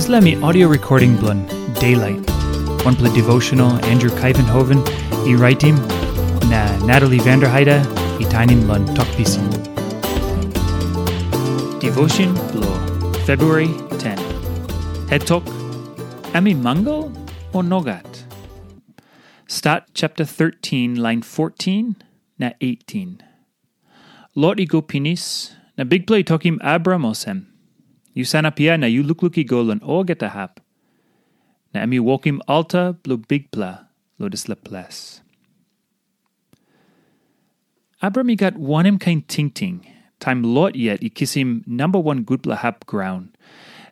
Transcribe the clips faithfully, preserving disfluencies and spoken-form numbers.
Dispela mi audio recording bilong Daylight, wanpela devotional Andrew Kaivenhoven i raitim, na Natalie Vanderheide i tainim long Tok Pisin. Devotion bilong February ten. Het tok, em i mangal o nogat? Stat chapter thirteen, line fourteen na eighteen. Lot i go pinis, na Bikpela i tokim Abram olsem, "Yu sanap hia na yu lukluk i go long olgeta hap." Na em i wokim alta bilong Bikpela long dispela ples. Abram i gat wanem kain tingting, taim Lot yet i kisim namba wan gutpela hap graun,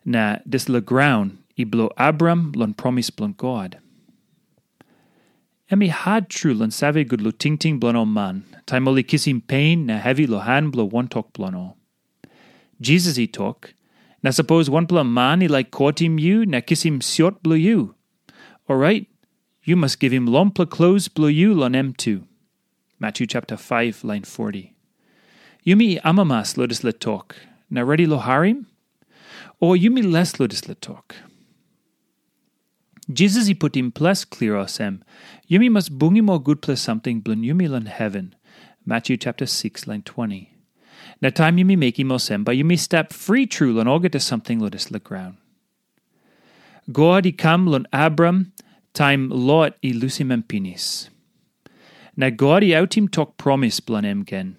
na dispela graun i bilong Abram long promis bilong God? Em i hat tru long save gut long tingting bilong ol man, taim ol i kisim pen na hevi long han bilong wantok bilong ol. Jisas i tok, "Na sapos wanpela man i laik kotim yu na kisim siot bilong yu, orait yu mas givim longpela klos bilong yu long em tu." Matyu chapter five, line forty. Yumi amamas long dispela tok, na redi long harim? O yumi les long dispela tok? Jisas i putim ples klia olsem, "Yumi mas bungim ol gutpela samting bilong yumi long heven." Matyu chapter six, line twenty. Na taim yumi mekim olsem, bai yumi stap fri tru long olgeta samting long dispela graun. God i kam long Abram taim Lot i lusim em pinis. Na God i autim tok promis bilong em gen,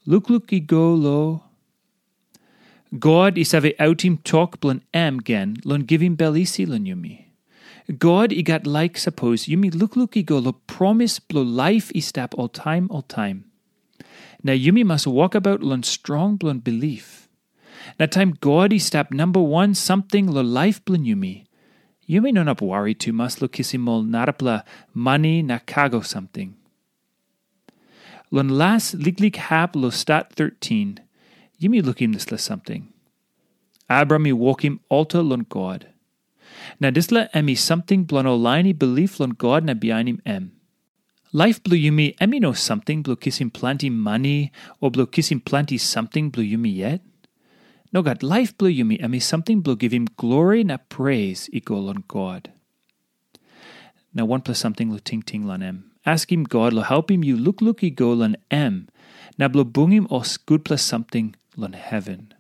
"Lukluk i go lo." God i save autim tok bilong em gen long givim bel isi long yumi. God i gat laik sapos yumi lukluk i go long promis bilong laip i stap oltaim oltaim. Na yumi mas wokabaut long strong bilong bilip. Na taim God i stap namba wan samting long laip bilong yumi, yumi no inap wari tumas long kisim ol narapela mani na kago samting. Long las liklik hap long Stat thirteen, yumi lukim dispela samting. Abram i wokim alta long God. Na dispela em i samting bilong ol lain i bilip long God na bihainim em. Laip bilong yumi em i no samting bilong kisim planti mani o bilong kisim planti samting bilong yumi yet. Nogat, laip bilong yumi em i samting bilong givim glori na pres i go long God. Na wanpela samting long tingting long em. Askim God long helpim yu lukluk i go long em, na bilong bungim ol gutpela samting long heven.